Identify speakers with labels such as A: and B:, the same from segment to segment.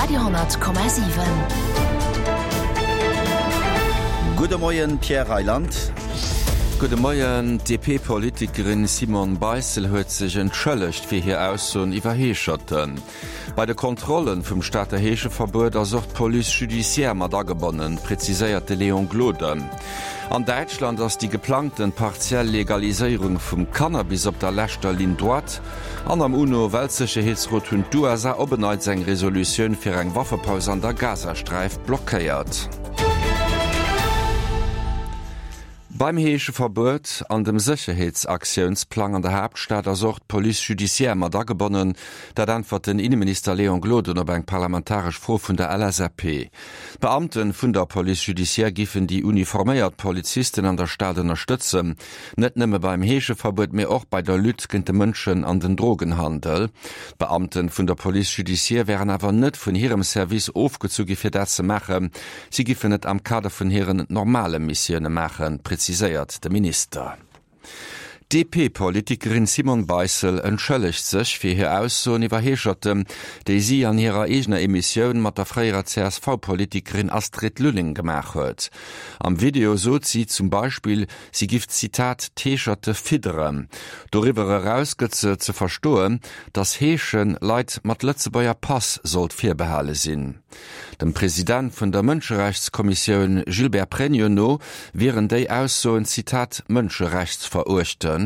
A: Radio,7.
B: Gudde Moien, Pierre Reyland.
C: Gudde Moien. D'DP-Politikerin Simone Beissel huet sech entschëllegt fir hir Aussoen iwwer Heescherten. Bei de Kontrolle vum Stater Heescheverbuet ass och d'Police judiciaire mat agebonnen, präziséiert de Léon Gloden. An Däitschland ass déi geplangten partiell Legaliséierung vum Cannabis op der leschter Ligne droite. An am UNO-Weltsécherheetsrot hunn d'USA op en Neits eng Resolutioun fir eng Waffepaus an der Gazasträif blockéiert. Beim Heescheverbuet an dem Sécherheetsaktiounsplang an der Haaptstad ass och d'Police judiciaire mat agebonnen. Dat äntwert den Inneminister Léon Gloden op eng parlamentaresch Fro vun der LSAP. D'Beamte vun der Police judiciaire giffen déi uniforméiert Polizisten an der Stad ënnerstëtzen. Net nëmme beim Heescheverbuet, mee och bei der Lutte géint de Mënschen an den Drogenhandel. D'Beamte vun der Police judiciaire wären awer net vun hirem Service ofgezu gi fir dat ze maachen. Si giffen et am Kader vun hiren normale Missioune maachen, präziséiert de Minister. D'DP-Politikerin Simone Beissel entschëllegt sech fir hir Aussoen iwwer Heescherten, déi si an hirer eegener Emissioun mat der fréierer CSV-Politikerin Astrid Lulling gemaach huet. Am Video sot si zum Beispill, si giff, Zitat, d'Heescherte fidderen. Doriwwer eraus gëtt se ze verstoen, datt Heesche Leit mat Lëtzebuerger Pass sollt virbehale sinn. Dem President vun der Mënscherechtskommissioun Gilbert Pregno no wieren déi Aussoen, Zitat, mënscherechtsveruechtend.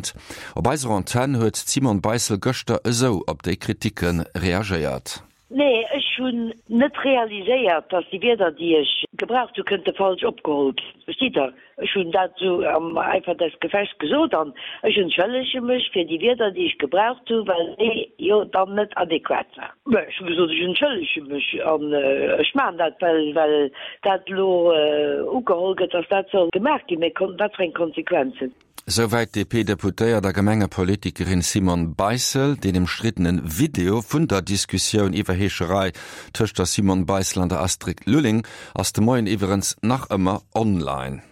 C: Op eiser Antenn huet d'Simone Beissel gëschter esou op déi Kriticke reagéiert.
D: Nee, ech hunn net realiséiert, dass déi Wierder, déi ech gebraucht hu, kënnte falsch opgeholl ginn. Verstitt Der? Ech hunn dat esou am Eifer des Gefechts gesot an ech entschëllege mech fir déi Wierder, déi ech gebraucht hu, well déi jo dann net adequat waren. Mä ech hu gesot, ech entschëllege mech an ech maachen dat, well, well dat elo ugeholl gëtt, dass dat soll gemaach ginn. Mä wat fir eng Konsequenzen?
C: Souwäit d'DP-Deputéiert a Gemengepolitikerin Simone Beissel. Deen ëmstriddene Video vun der Diskussioun iwwer Heescherei tëscht der Simone Beissel an der Astrid Lulling ass de Moien iwwerens nach ëmmer online.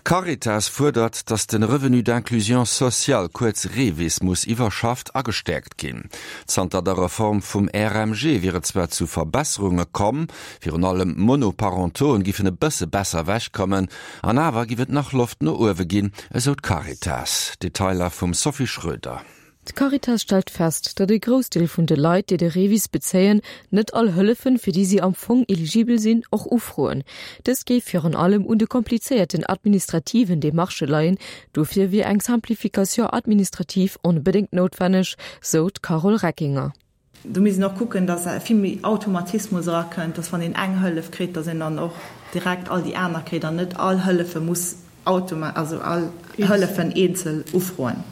C: D'Caritas fuerdert, datt de Revenu d'inclusion sociale, kuerz REVIS, muss iwwerschafft a gestäerkt ginn. Zanter der Reform vum RMG wier et zwar zu Verbesserunge komm, virun allem Monoparentoen giffen e bësse besser ewechkommen, An awer giff et nach Loft no uewe ginn, esou d'Caritas. Detailer vum Sophie Schröder.
E: D'Caritas stellt fest, datt e Groussdeel vun de Leit, déi de REVIS bezéien, net all Hëllefen, fir déi si am Fong eligibel sinn, och ufroen. Dëst géif virun allem un de komplizéierten administrativen Demarchë leien. Dofir wier eng Simplification administrative onbedéngt noutwenneg, sou d'Carole Reckinger.
F: Do misst een och kucken, datt vill méi Automatismus erakënnt, datt wann een eng Hëllef kritt, datt een dann och direkt all déi aner kritt an net all Hëllefe muss automa-, also all Hëllefen eenzel ufroen.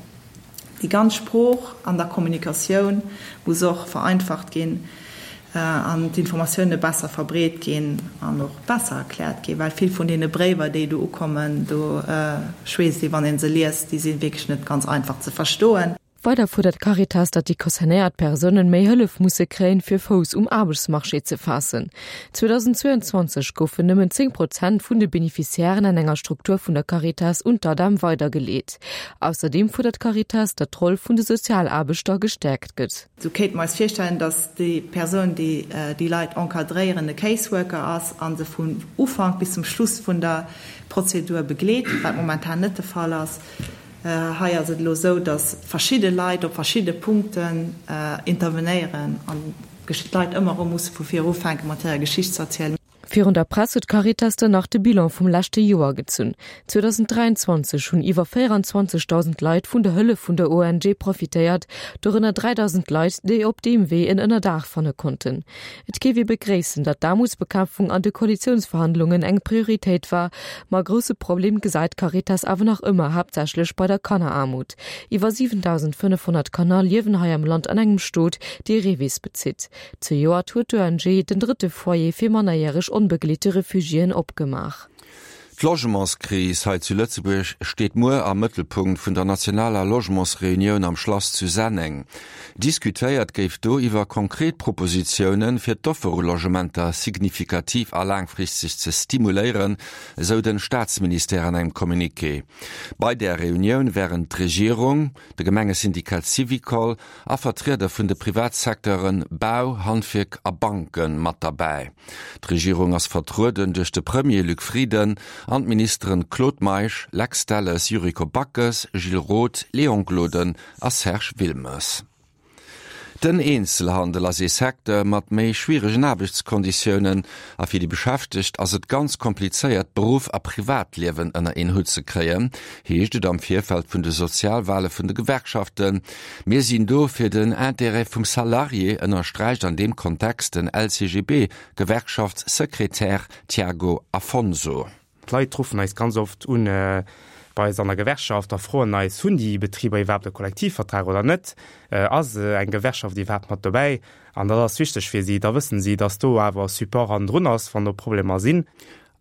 F: Déi ganz Sprooch an der Kommunikatioun muss och vereinfacht ginn an d'Informatioune besser verbreet ginn an och besser erkläert ginn, well vill vun deene Bréiwer, déi do ukommen, do schweesst ee wann ee se liest, déi si wierklech net ganz einfach ze verstoen.
E: Weider fuerdert d'Caritas, datt déi concernéiert Persounen méi Hëllef musse kréien, fir Fouss um Aarbechtsmarché ze faassen. 2022 goufen nëmmen 10 Prozent vun de Beneficiairen an enger Struktur vun der Caritas un d'ADEM weidergeleet. Ausserdeem fuerdert d'Caritas, datt d'Roll vun de Sozialaarbechter gestäerkt gëtt.
F: Sou kéinte mer eis virstellen, datt déi Persoun, déi déi Leit encadréieren, e Caseworker ass a se vun Ufank bis zum Schluss vun der Prozedur begleet, wat momentan net de Fall ass. Hei ass et elo esou, datt verschidde Leit op verschidde Punkten intervenéieren an d'Leit ëmmer erëm musse vu vir ufänke mat hirer Geschicht ze erzielen.
E: Virun der Press huet d'Caritas dann nach de Bilan vum leschte Joer gezunn. 2023 hunn iwwer 24.000 Leit vun der Hëllef vun der ONG profitéiert, dorënner 3.000 Leit, déi op deem Wee en Ënnerdaach fanne konnten. Et géif ee begréissen, datt d'Aarmutsbekämpfung an de Koalitiounsverhandlungen eng Prioritéit war, ma e grousse Problem gesäit d'Caritas awer nach ëmmer haaptsächlech bei der Kanneraarmut. Iwwer 7.500 Kanner liewen hei am Land an engem Stot, dee REVIS bezitt. Zejoert huet d'ONG den drëtte Foyer fir mannerjäreg onbegleete Refugiéen opgemaach.
C: D'Logementskris hei zu Lëtzebuerg steet muer am Mëttelpunkt vun der nationaler Logementsreunioun am Schlass zu Senneng. Diskutéiert géif do iwwer konkret Propositiounen, fir d'Offer u Logementer signifikativ a laangfristeg ze stimuléieren, esou den Staatsministère an engem Communiqué. Bei där Reunioun wären d'Regierung, de Gemengesyndikat Syvicol a Vertrieder vun de Privatsecteuren Bau, Handwierk a Banke mat derbäi. D'Regierung ass vertrueden duerch de Premier Luc Frieden an d'Ministeren Claude Meisch, Lex Delles, Yuriko Backes, Gilles Roth, Léon Gloden a Serge Wilmes. Den Eenzelhandel ass ee Secteur mat méi schwieregen Aarbechtskonditiounen a fir déi Beschäftegt ass et ganz komplizéiert, Beruff a Privatliewen ënner een Hutt ze kréien, heescht et am Virfeld vun de Sozialwale vun de Gewerkschaften. Mir sinn do fir den Intérêt vum Salarié, ënnersträicht an deem Kontext den LCGB-Gewerkschaftssekretär Tiago Afonso.
A: D'Leit ruffen eis ganz oft un bei eis an der Gewerkschaft a froen eis, Hunn déi Betriber iwwerhaapt e Kollektivvertrag oder net? Ass eng Gewerkschaft iwwerhaapt mat dobäi? An dat ass wichteg fir si. Da wëssen si, datt do awer Support hannendrun ass, wann do Problemer sinn.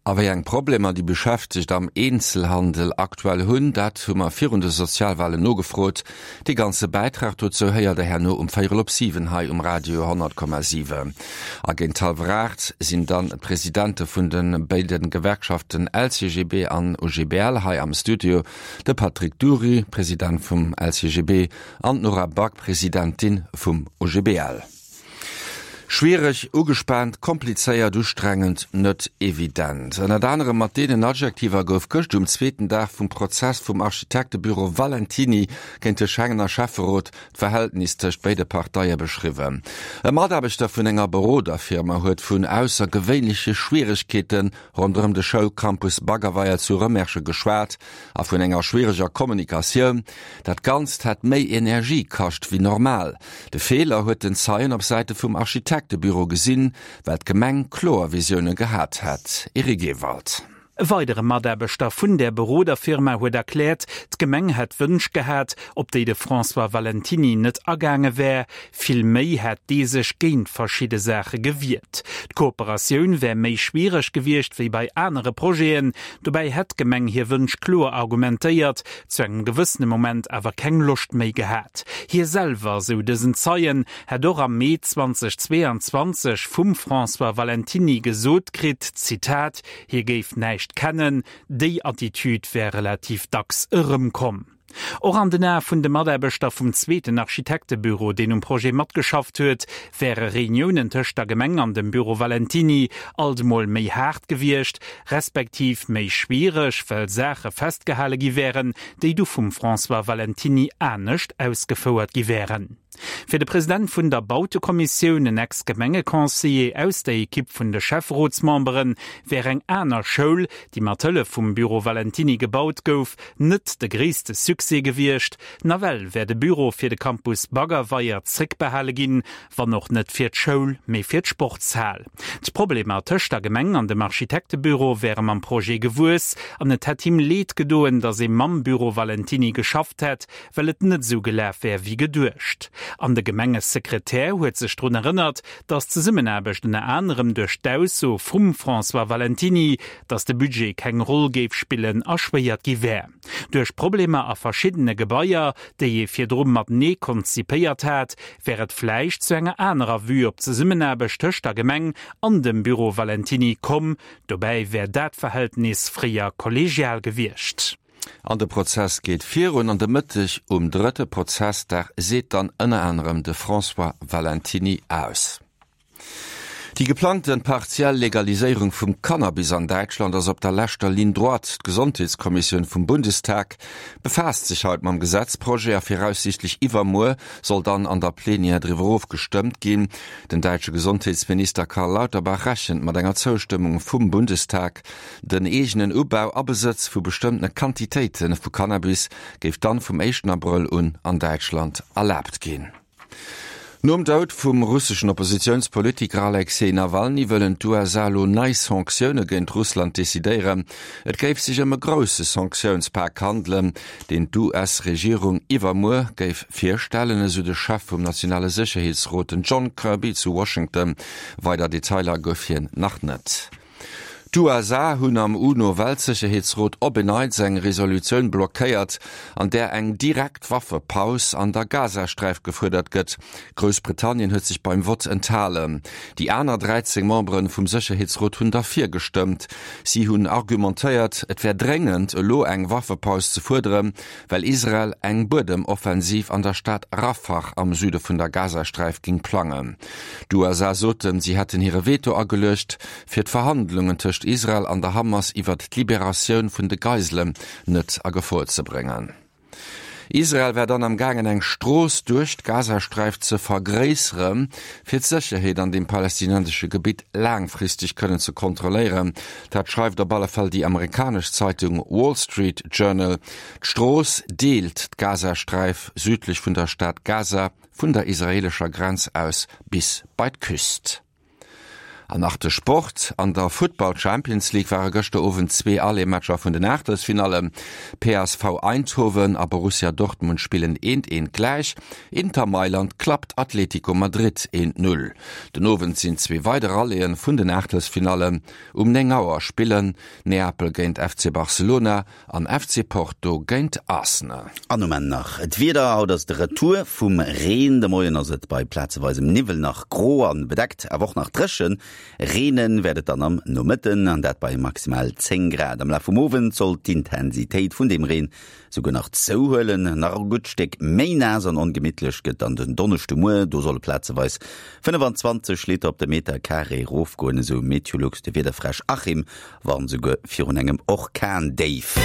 C: A wéi eng Problemer déi Beschäftegt am Eenzelhandel aktuell hunn, dat hu mer virun de Sozialwalen nogefrot. Dee ganze Bäitrag dozou héiert der herno um véierel op 7 hei um Radio 100,7. A géint hallwer 8 sinn dann d'Presidente vun de béide Gewerkschaften LCGB an OGBL hei am Studio, de Patrick Dury, President vum LCGB, an d'Nora Back, Presidentin vum OGBL. Schwiereg, ugespaant, komplizéiert, ustrengend, net evident. Ënnert anerem mat deenen Adjektiver gouf gëscht um zweeten Dag vum Prozess vum Architektebüro Valentiny géint de Schengener Schäfferot d'Verhältnis tëscht béide Parteie beschriwwen. E Mataarbechter vun enger Beroderfirma huet vun aussergewéinleche Schwieregkeete ronderëm de Schoulcampus Baggerweier zu Rëmersche geschwat a vun enger schwiereger Kommunikatioun. Dat Ganzt hätt méi Energie kascht wéi normal. De Feeler huet den Zeien op Säite vum Architektebüro gesinn, well d'Gemeng kloer Visioune gehat hätt. Eric Ewald.
G: E weidere Mataarbechter vun där Beroderfirma huet erkläert, d'Gemeng hätt Wënsch gehat, op déi de François Valentiny net agaange wär. Vill méi hätt dee sech géint verschidde Saache gewiert. D'Kooperatioun wär méi schwiereg gewiescht wéi bei anere Projeten. Dobäi hätt d'Gemeng hir Wënsch kloer argumentéiert, zu engem gewëssene Moment awer keng Loscht méi gehat. Hie selwer, sou dësen Zeien, hätt och am Mee 2022 vum François Valentiny gesot kritt, Zitat, hie géif näischt kennen. Déi Attitüd wär relativ dacks erëmkomm. Och an den Ae vun de Mataarbechter vum zweeten Architektebüro, deen um Projet matgeschafft huet, wäre Reuniounen tëscht der Gemeng an dem Büro Valentiny alt emol méi haart gewiescht, respektiv méi schwiereg, well Saache festgehale gi wären, déi du vum François Valentiny anescht ausgefouert gi wären. Fir de President vun der Bautekommissioun, en Ex-Gemengeconseiller aus der Ekipp vun de Schäfferotsmemberen, wär eng aner Schoul, déi mat Hëllef vum Büro Valentiny gebaut gouf, net de gréisste Succès gewiescht. Nawell wär de Büro fir de Campus Baggerweier zréckbehale ginn, wann och net fir d'Schoul, mee fir d'Sportshal. D'Problemer tëscht der Gemeng an dem Architektebüro wäre mam Projet gewuess an et hätt him Leed gedoen, datt ee mam Büro Valentiny geschafft hätt, well et net esou gelaf wär wéi geduecht. An de Gemengesekretär huet sech drun erënnert, datt d'Zesummenaarbecht ënner anerem duerch d'Ausso vum François Valentiny, datt de Budget keng Roll géif spillen, erschwéiert gi wär. Duerch Problemer a verschiddene Gebaier, déi ee virdru matenee konzipéiert hat, wär et vläicht zu enger anerer Vue op d'Zesummenaarbecht tëscht der Gemeng an dem Büro Valentiny komm. Dobäi wär dat Verhältnis fréier kollegial gewiescht.
C: An de Prozess geet virun an de Mëtteg um drëtte Prozessdag seet dann ënner anerem de François Valentiny aus. Déi geplangte partiell Legaliséierung vum Cannabis an Däitschland ass op der leschter Ligne droite. D'Gesondheetskommissioun vum Bundestag befaasst sech haut mam Gesetzprojet a viraussiichtlech iwwermuer soll dann an der Plenière driwwer ofgestëmmt ginn. Den däitsche Gesondheetsminister Karl Lauterbach rechent mat enger Zoustëmmung vum Bundestag. Den eegenen Ubau a Besëtz vu bestëmmtene Quantitéite vu Cannabis géif dann vum éischten Abrëll un an Däitschland erlaabt ginn. Nom Doud vum russeschen Oppositiounspolitiker Alexej Nawalny wëllen d'USA elo nei Sanktioune géint Russland decidéieren. Et géif sech ëm e grousse Sanktiounspak handelen, deen d'US-Regierung iwwermuer géif virstellen, esou de Chef vum nationale Sécherheetsrot, den John Kirby zu Washington. Weider Detailer gouf hien nach net. D'USA hunn am UNO-Weltsécherheetsrot op en Neits eng Resolutioun blockéiert, an där eng direkt Waffepaus an der Gazasträif gefuerdert gëtt. Groussbritannien huet sech beim Vott enthalen. Déi aner 13 Membere vum Sécherheetsrot hunn derfir gestëmmt. Si hunn argumentéiert, et wär dréngend, elo eng Waffepaus ze fuerderen, well Israel eng Buedemoffensiv an der Stad Rafah am Süde vun der Gazasträif géing plangen. D'USA soten, si hätten hire Veto ageluecht, fir d'Verhandlungen tëscht Israel an der Hamas iwwert d'Liberatioun vun de Geiselen net a Gefor ze bréngen. Israel wär dann am gaangen eng Strooss duerch d'Gazasträif ze vergréissere fir d'Sécherheet an deem palästinensesche Gebitt laangfristeg kënnen ze kontrolléieren. Dat schreift op alle Fall déi amerikanesch Zeitung Wall Street Journal. D'Strooss deelt d'Gazasträif südlech vun der Stad Gaza vun der israeelescher Grenz aus bis bei d'Küst. An nach de Sport, An der Futtball Champions League ware gëschter Owend zwee Aller-Matcher vun den Aachtelsfinallen. PSV Eindhoven a Borussia Dortmund spillen eent eent gläich. Inter Mailand klappt Atletico Madrid eent Null. Den Owend sinn zwee weider Rallyë vun den Aachtelsfinallen. Um 9 Auer spillen Neapel géint FC Barcelona An FC Porto géint Arsenal.
B: An um Enn nach d'Wieder, Haut ass de Retour vum Reen. De Moien ass et bei plazeweisem Niwwel nach gro an bedeckt, awer och nach dréchen. Reene wäert et dann am Nomëtten, an dat bei maximal 10 Grad. Am Laf vum Owend soll d'Intensitéit vun dem Reen souguer nach zouhuelen. Nach e gutt Stéck méi naass an ongemittlech gëtt dann den Donneschdemuer, do solle plazeweis 25 Liter op de Meter Carré erofgoen, esou Meteolux. De Wiederfräsch Achim warnt souguer virun engem Orkandéif.